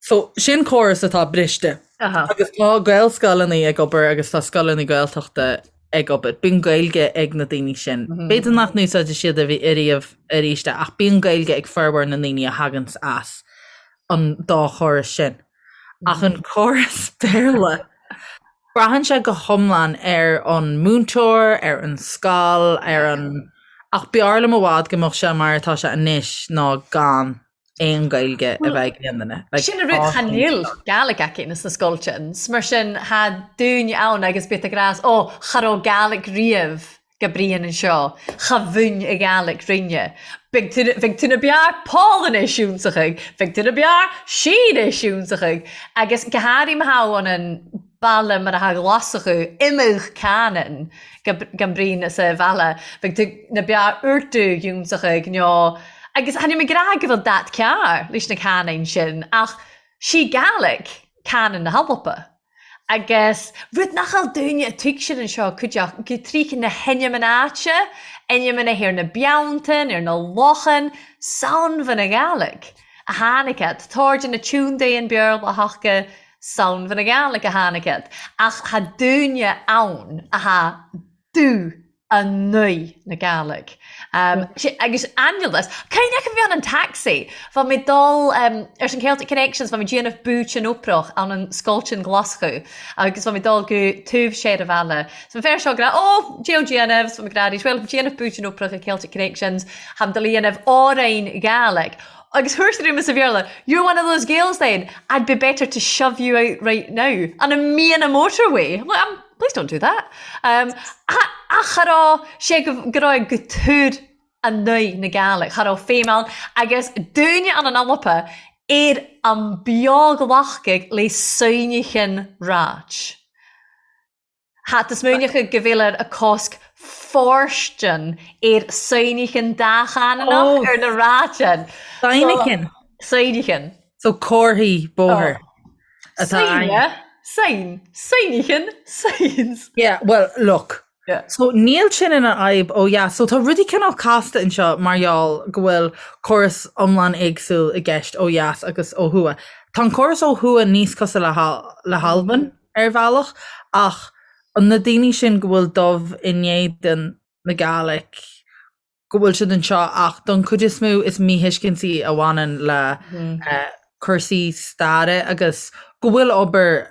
So sin córas atá briste. Agus tá Gaelscoileanna ag obair agus tá scoileanna Gaeltachta ag obair. Bíonn Gaeilge ag na daoine sin. B'fhéidir nach n-úsáidfidh siad ariamh arís é ach bíonn Gaeilge ag formhór na ndaoine a thaganns as an dá chóras sin. Ach an córas Béarla, braitheann sé go hiomlán ar an múinteoir, ar an scoil, ar an. Ach b'fhearr liom i bhfad go mbeadh sé mar atá sé anois ná gan aon Ghaeilge a bheith ag aon duine. Sin an rud, cha níl Gàidhlig aici sna scoiltean, 's mar sin tha daoine ann agus bith ag ràdh, ó, cha robh Gàidhlig riamh. go bruíon anseo, cha mhúin a Ghàidhlig rinne. Beidh tú, bheidh tú na bearr Pòlainnis iúnsachaidh, bheidh tú na bearr Sínis iúnsachaidh, agus go háirithe má tha ann an baile mar atá Glaschú, imeadh canann gan bruíon sa bhaile, bheidh tú na bearr Urdú iúnsachaidh nó, agus tha mi ag ràdh go bhfuil dat ceàrr leis na canainn sin, ach sí Gàidhlig canann na h-Alba. Agus rud nach eol dúinne a tuigsean anseo cuideachta go tríth na hainm an áite, ainm na ar na beanntain, ar na lochan, Samhain na Gàidhlig a tháinig iad. Táirde na tiúndaí an Béarla a thaca Samhain na Gàidhlig a tháinig iad. Ach tha dúinne ann a tha dubh 9 na Gàidhlig. Agus ainneolas. Cuimhneach a bhí ann an taxi. Bha mi dol ars an Celtic Connections, bha mi déanamh búit an Oprach ann an Scoiltean Glaschú agus bha mi dol gu taobh soir a bhaile. So bha fear seo ag rá, Ó, dè déanamh, so bha mi ag rá arís, Well, déanamh búit an Oprach ag Celtic Connections, tha mi dol a dhéanamh òrain Gàidhlig. Agus thuirt sé sa Bhéarla, You're one of those Gaels then, I'd be better to shove you out right now on a mian motorway. I'm like, I'm Please don't do that. Um, ach cha raibh sé go go raibh go túr a naoi na Gàidhlig, cha raibh feidhm ann agus dúine an an Alpa ar an beag-lachcaigh le soinnighean ráit. Tha tú smaoineachadh go bhfuil ar a cosc fóirstean ar soinnighean dá-chananach Oh. ar na ráitean. Soinnighean. Soinnighean. So comharthaí bóthair atá Sign, ann. sign, signichean, signs. Yeah, well, look. Yeah. So níl sin ina fhadhb ó dheas. So tá rudaí cineál casta anseo mar gheall go bhfuil córas iomlán éagsúil i gceist ó dheas agus ó thuaidh. Tá an córas ó thuaidh níos cosúil le le hAlbain ar bhealach ach na daoine sin go bhfuil dubh in éadan na Gàidhlig, go bhfuil siad anseo ach don chuid is mó is míthuiscintí a bhaineann le cúrsaí staire agus go bhfuil obair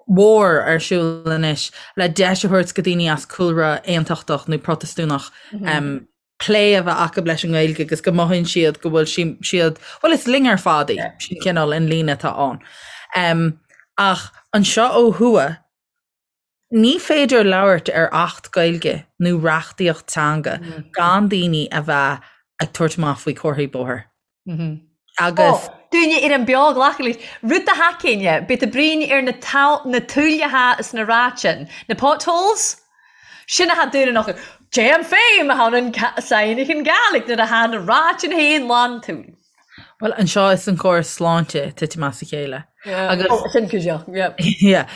mhór ar siúl anois le deis a thabhairt go daoine as cúlra aontachtach nó Protastúnach plé a bheith acu leis an nGaeilge agus go mothaíonn siad go bhfuil siad, bhuel is linn ar fad í, sin cineál an líne atá ann. Ach anseo ó thuaidh, Ní féidir labhairt ar Acht Gaeilge nó reachtaíocht teanga gan daoine a bheith ag tabhairt amach faoi chomharthaí bóthair. Agus. Ó, dúinne ar an beo glacadh leis. Rud a thacaíonn, bíodh bruíon ar na na tuailleacha is na ráitean, na potholes, sin atá dúinn an fhocal. Déan féin a tháinig an Gàidhlig nuair a tha na ráitean féin lán túil. Bhuel, anseo is an córas sláinte titim as a chéile. Agus oh, sin cuideach, yeah. Yeah.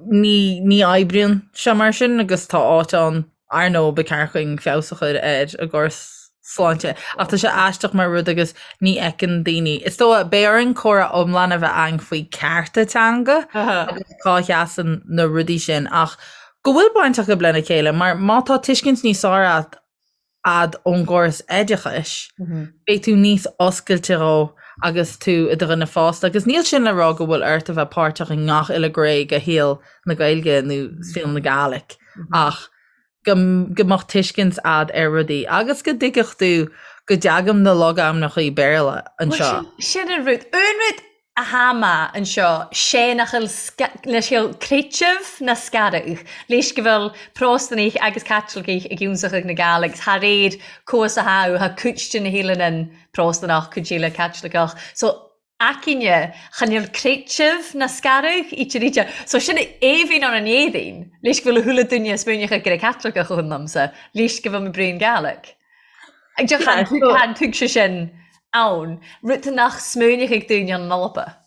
Ní, ní oibríonn sé mar sin agus tá áit ann ar ndóigh ba cheart dúinn feabhas a chur ar an gcóras sláinte. Ach tá sé aisteach mar rud agus ní fheiceann daoine. Is dóigh, beidh orainn comhrá iomlán a bheith againn faoi cearta teanga agus cá sheasann na rudaí sin ach go bhfuil baint acu lena chéile mar má tá tuiscint níos fearr agat a'd ón gcóras oideachais, beidh tú níos oscailte dhó agus tú i do dhuine fásta. Agus níl sin le rá go bhfuil ort a bheith páirteach i ngach uile ghné de shaol na Gaeilge nó saol na Gàidhlig ach go go mbeadh tuiscint a'd ar rudaí agus go dtuigfeadh tú go dteagaim na logainmneacha Béarla anseo. Sin an rud. An rud a tha math anseo 'sé nach eil leis eil creideamh ná scaradh leis go bhfuil Pròstanaich agus Caitlicigh ag ionnsachaidh na Gàidhlig 's tha réir cois a tha tha cuid de na h-eileanan Pròstanach cuid eile Caitliceach so aicinne chan eil creideamh ná scaradh idir idir so sin aoibhinn ann an Éadaoin leis go bhfuil a thuilleadh duine smaoineachadh gur Caitliceach a liomsa leis go bhfuil mo braon Gàidhlig. Ag deoch chan tuig sé sin ann, rud nach smaoineochaidh daoine an Alba.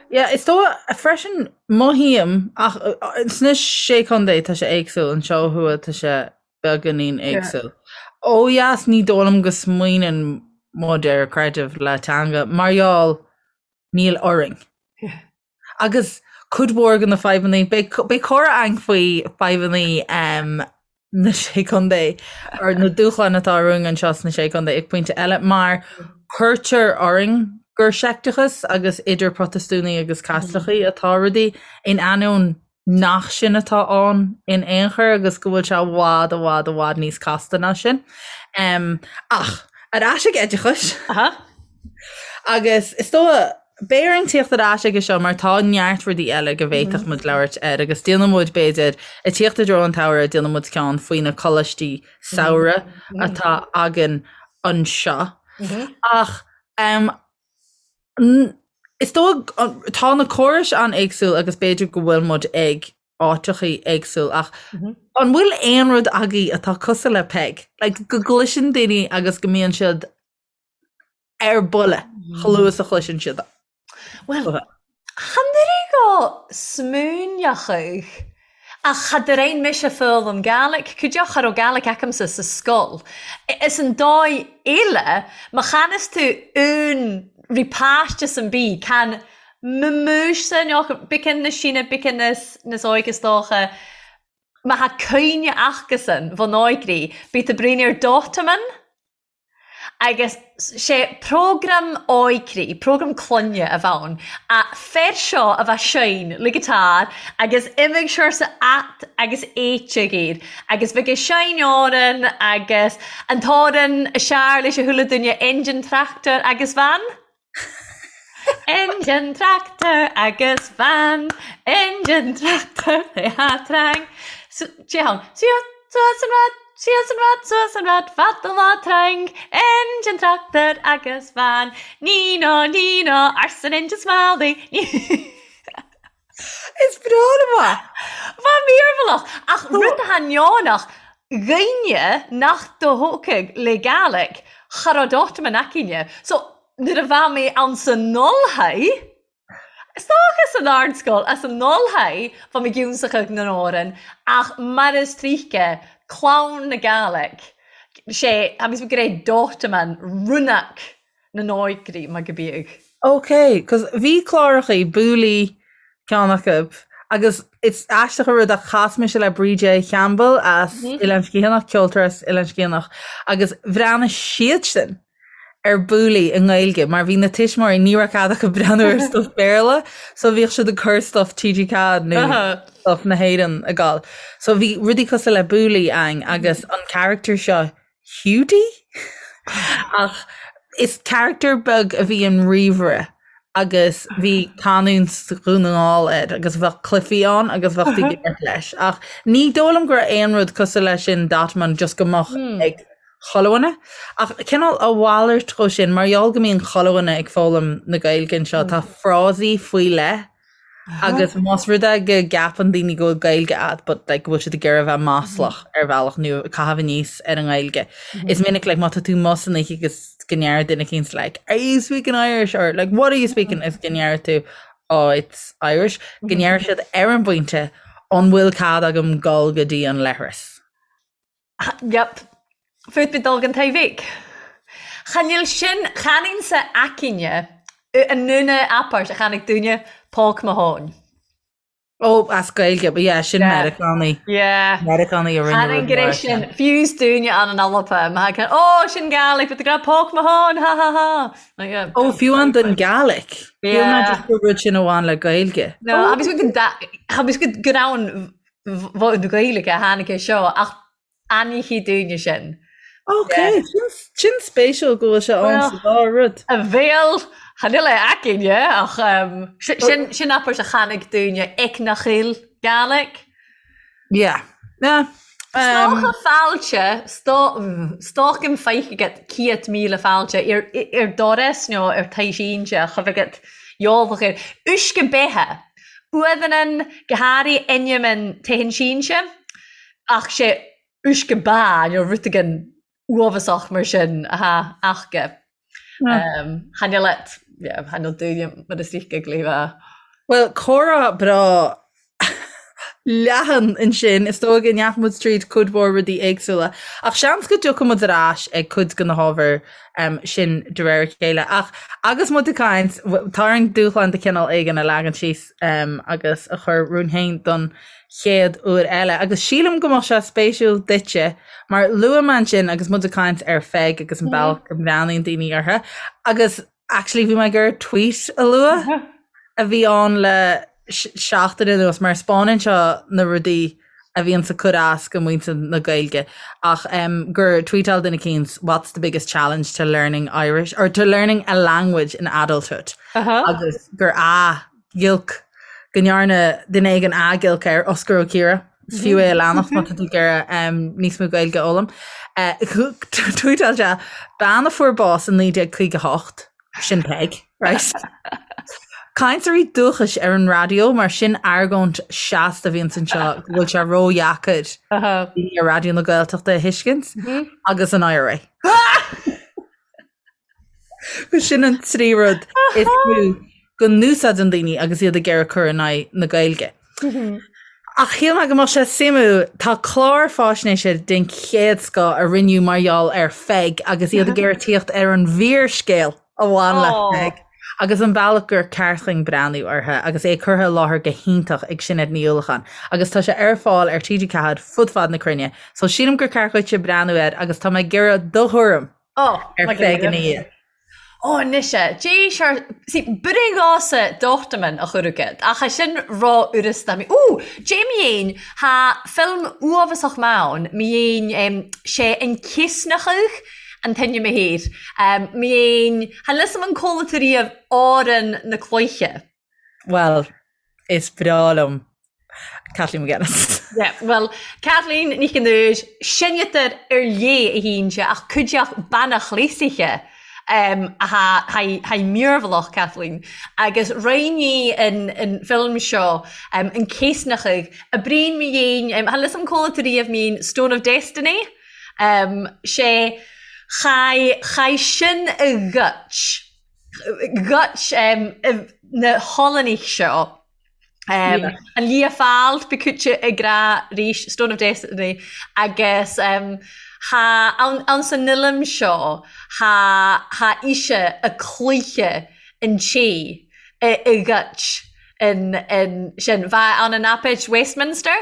Yeah, is dóigh freisin mothaím ach sna sé chontae tá sé éagsúil, anseo ó thuaidh tá sé beagáinín éagsúil. Ó dheas ní dóigh liom go smaoineann muid ar creideamh le teanga mar gheall níl orainn. Agus cuid mhór de na fadhbanna, beidh comhrá againn faoi fadhbanna na Sé Chontae, or na dúshláin atá romhainn anseo sna Sé Chontae ag pointe eile, mar cuirtear orainn gur seicteachas agus idir Protastúnaigh agus Caitlicigh atá rudaí, in ainneoin nach sin atá ann in aon chor agus go bhfuil sé i bhfad, i bhfad, i bhfad níos casta ná sin. Ach ar ais ag oideachas. Agus is dóigh, beidh orainn tíocht ar ais aige seo mar tá neart rudaí eile go bhféadfadh muid labhairt air agus déanfaidh muid, b'fhéidir, ag tíocht i dtreo an tsamhraidh, déanfaidh muid ceann faoi na coláistí samhraidh atá againn anseo. Ach is dóigh, tá na córais an-éagsúil agus b'fhéidir go bhfuil muid ag áiteachaí éagsúil ach an bhfuil aon rud agaibh atá cosúil le Peig? Like, go gcloiseann daoine agus go mbíonn siad ar buile chomh luath is a chloiseann siad. Bhuel, chan oireadh go smaoineochadh ach cha d'fhrein mise foghlaim Gàidhlig, cuideachd cha robh Gàidhlig acamsa sa sgoil. Is an dòigh eile, ma channas tu aon ri pàiste sam bith, can m-muis-sa beacán na sine, beacán nas òige 's dòcha, ma tha cuimhne acasan bhon òigri, bith tu bruidhinn air Dòtaman. Agus 'sé prógram óigrí, prógram clainne a bheadh ann, a fear seo a bheadh seinm le guitar agus imigh siar sa at agus éiteadh air agus bheadh ag seinm òran agus an t-òran a sear leis a chuile duine engine tractor agus van. Engine tractor agus van, engine tractor a trang. Téann suas an rad, síos an rad, suas an rad, fada lá trang. Engine tractor agus van, ní ná ní ná arsa an engine smiley. Is breá liom é. Bha mearbhallach, ach rud atá neonach, dhaoine nach do-thógfadh le Gàidhlig, cha robh Dòtaman aicinne. So, nuair a bha mé ann san Ulthaidh, is dócha san ardscoil, as an Ulthaidh, bha mi giúnsachadh nan òran, ach mar is tríce, clann na Gàidhlig, sé, tha mi ag ràdh Dòtaman, rúnach na n-óigrí mar go bíodh. Ok, cos bhí clárachaí, Bouli ceann acu, agus is aisteach an rud ach chas mise le Bríde Chaimbeul as Oileán Sgitheanach, ceoltóir as Oileán Sgitheanach, agus bhreathnaigh siadsan ar Bouli i nGaeilge mar bhí na tuismitheoirí, ní raibh cead acu breathnú ar stuff Béarla, so bhíodh siad ag cur stuff TG4 nó stuff na hÉireann ag gabháil. So bhí rudaí cosúil le Bouli ann agus an character seo Hiúdaí? Ach is character beag a bhí in ríomhaire agus bhí canúint Dhún na nGall air agus bheadh cluichí ann agus bheadh tú ag imirt leis. Ach ní dóigh liom go raibh aon rud cosúil leis sin Dòtaman just go mbeadh ag. chuile dhuine. Ach cineál a mhalairt dhó sin, mar gheall go mbíonn chuile dhuine ag foghlaim na Gaeilge anseo, tá frásaí faoi leith agus más rud é go gceapann daoine go bhfuil Gaeilge agat but like go bhfuil siad ag iarraidh a bheith maslach ar bhealach nó ag caitheamh aníos ar an nGaeilge. Is minic like má tá tú amuigh san oíche agus go ndeir duine eicínt like are you speaking Irish or like what are you speaking is go ndeir tú oh it's Irish go ndeir siad ar an bpointe an bhfuil cead agam dul go dtí an leithreas. Yep. Fút bit dul gan taobhaigh. Chan fheil sin, chan sa aicine an ndúna apáirt a chainig dúine póg mo thóin. Ó, as Gaeilge, but yeah, sin Meiriceánaí. Yeah. Meiriceánaí a rinne Chan rud go mar raibh sin. sin, fiús dúine an an Alba, ma thagann, ó, sin Gaelic, but the grab póg mo thóin, ha ha ha. Like, yeah. Ó, fiú an den Gaelic. Fiú Yeah. ná just gur rud sin a bhain le Gaeilge. No, agus go da, agus go go raibh an bheadh na Gaeilge a tháinig é seo ach ainníochaí dúinne sin. Ok, sin spéisiúil go bhfuil sé ann sa dá rud. A bhéal, chan fhuil é againne ach sin sin abairt a tháinig dúinne ag na chill Gaelic. Yeah. Yeah. Stoca fáilte, stocaim feich agat 100,000 fáilte ar ar doras nó ar taobh sínte a chuimh agat gheobhadh air. Uisce beithe. Uamhan go háirithe ainm an téann sínse ach sé uisce ba nó rud éigin uafásach mar sin atá acu. Chan fhuil et, yeah, chan fhuil dúinne mar is ríce go léifeá. Bhuel, comhrá breá leathan ansin. Is dóigh go ndeachaigh muid tríd cuid mhór rudaí éagsúla. Ach seans go dtiocfaidh muid ar ais ag cuid de na hábhair sin de réir a chéile. Ach agus muid ag caint, tá orainn dúshlán de chineál éigin a leagan síos agus a chur romhainn féin don chéad uair eile. Agus sílim go mbeadh sé spéisiúil duitse, mar luaigh mé ansin agus muid ag caint ar Pheig agus an bealach go mbreathnaíonn daoine uirthi. Agus Actually bhí mé ag iarraidh tweet a lua a bhí ann le seachtain anuas mar spáineann seo na rudaí a bhíonns ag cur as go muintir na Gaeilge ach um, gur tweetáil duine eicínt what's the biggest challenge to learning Irish or to learning a language in adulthood uh -huh. agus gur a ghiolc go ndearna duine éigin athghiolc air, Osgur Ó Ciardha, is fiú é a leanacht má tá tú ag iarraidh níos mó Gaeilge a fhoghlaim. Tweetáil sé, bean a fuair bás in 1958, sin Peig, right? Cainteoirí dúchais ar an raidió, mar sin argóint seasta a bhíonns anseo go bhfuil sé ródheacair daoine ar Raidió na Gaeltachta a thuiscint, agus an IRA. Sin an trí rud is mó go n-úsáideann daoine agus iad ag iarraidh cur in aghaidh na Gaeilge. Ach shíl mé go mbeadh sé suimiúil, tá clár fáisnéise den chéad scoth a rinneadh mar gheall ar Pheig agus iad ag iarraidh tíocht ar an bhfíorscéal a bhain le Peig agus an bealach gur ceart dhúinn breathnú uirthi agus é curtha i láthair go hiontach ag Sinéad Ní Uallacháin agus tá sé ar fáil ar TG4 fud fad na cruinne so sílim gur ceart dhuitse breathnú air agus tá mé ag iarraidh do thuairim Oh, ar Pheig ina dhiaidh. Ó, anois e, d'éis ar... See, b'in gása dochtaman a chur agat, ach é sin ró-fhurasta. Mi, Ó, dé mi fhéin, tha film uafasach maith ann, mi fhéin, em, sé an Céasnachadh an t-ainm a thair. Em, mi fhéin, chan fhios a'm an cuala tú riamh Árann na Cloiche. Bhuel, is breá liom Kathleen McGuinness. Yeah, well, Kathleen Nic an Úir, seineadar ar léith a hínse ach cuideach bean chléasaithe um, tha mírbhlach Kathleen agus roinní an, an film seo um, an céasnachadh a bríon mi dhéin um, tha lios an cóla tú riamh mín Stone of Destiny um, sé chai, chai sin a ghoit Ghoit na hOllannaigh seo an Lia Fáil b'cúite ag rá rís Stone of Destiny agus tha ann san fhilm seo tha tha ise a cluiche an té a ghoit an an sin. Bha ann an Aipid Westminster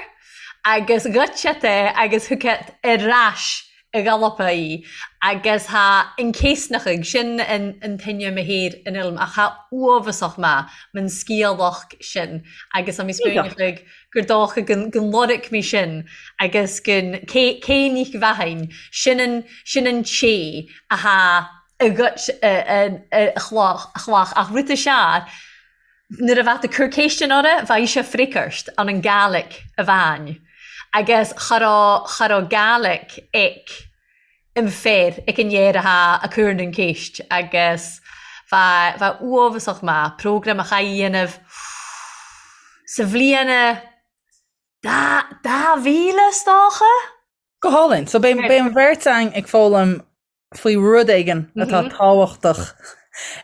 agus ghoit siad é agus thug siad ar ais i gCalapa í agus tha an céasnachadh sin an t-ainm a thair an fhilm ach tha uafasach maith man sciathlach sin agus tá mé spúineachadh gur dócha gun gun lorg mé sin agus gun cé cé nich bheathain sin an sin an té a tha a ghoit a a a chloch a chlach ach rud a sear Nuair a bheadh tú cur céistean orra, bheadh sé freagairt an an Gaelic a bhain agus cha raibh, cha raibh Gaelic ag. Im fear ag an fhear athá a' cur nan ceist agus bha bha uabhasach maith programme a chaith dhéanamh sa bhliain dá 2000 is dócha? Go hálainn. So beidh beidh an bheirt againn ag foghlaim faoi rud éigin atá tábhachtach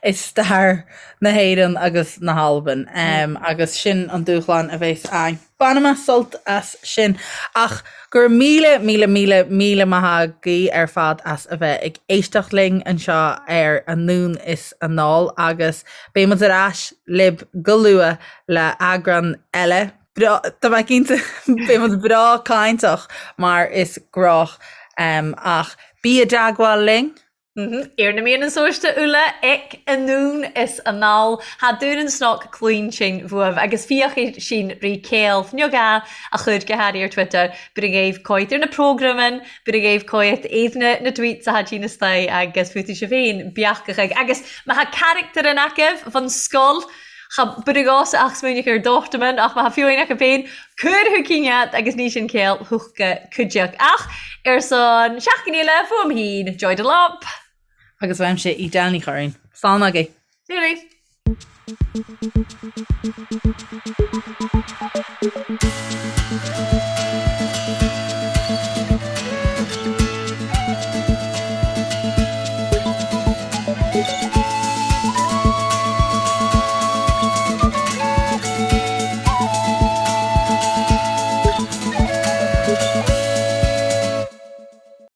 i stair na hÉireann agus na hAlban agus sin an dúshlán a bheas againn. Bainfidh mé sult as sin. Ach go raibh míle, míle, míle, míle maith agaibh ar fad as a bheith ag éisteacht linn anseo ar Anonn is Anall agus beidh muid ar ais libh go luath le eagrán eile. Breá, tá mé cinnte beidh muid breá cainteach mar is gnách ach bí i dteagmháil linn. Ar na meadhnan sóiste uile ag anonn is anall tha Dùn an Cnoc cluinsinn bhuaibh agus fiachaidh sinn ri céill fniog a a chur go hairí ar Twitter bur a ghaibh coit ar na prógramain bur a ghaibh coit éadna na tweets a tha na staigh agus fútaí sibh féin beachachadh agus má tha carachtar in agaibh bhon scoil Cha bur a gcás ach smaoineach ar Dortmund ach má tha fiú acu féin cuir thu cinn agus ní sin céill thuchta cuideach ach ar son seachtain eile fuaim féin Joy Delap. Agus uaimse Edel Ní Churraoin. Slán agaibh. Slán.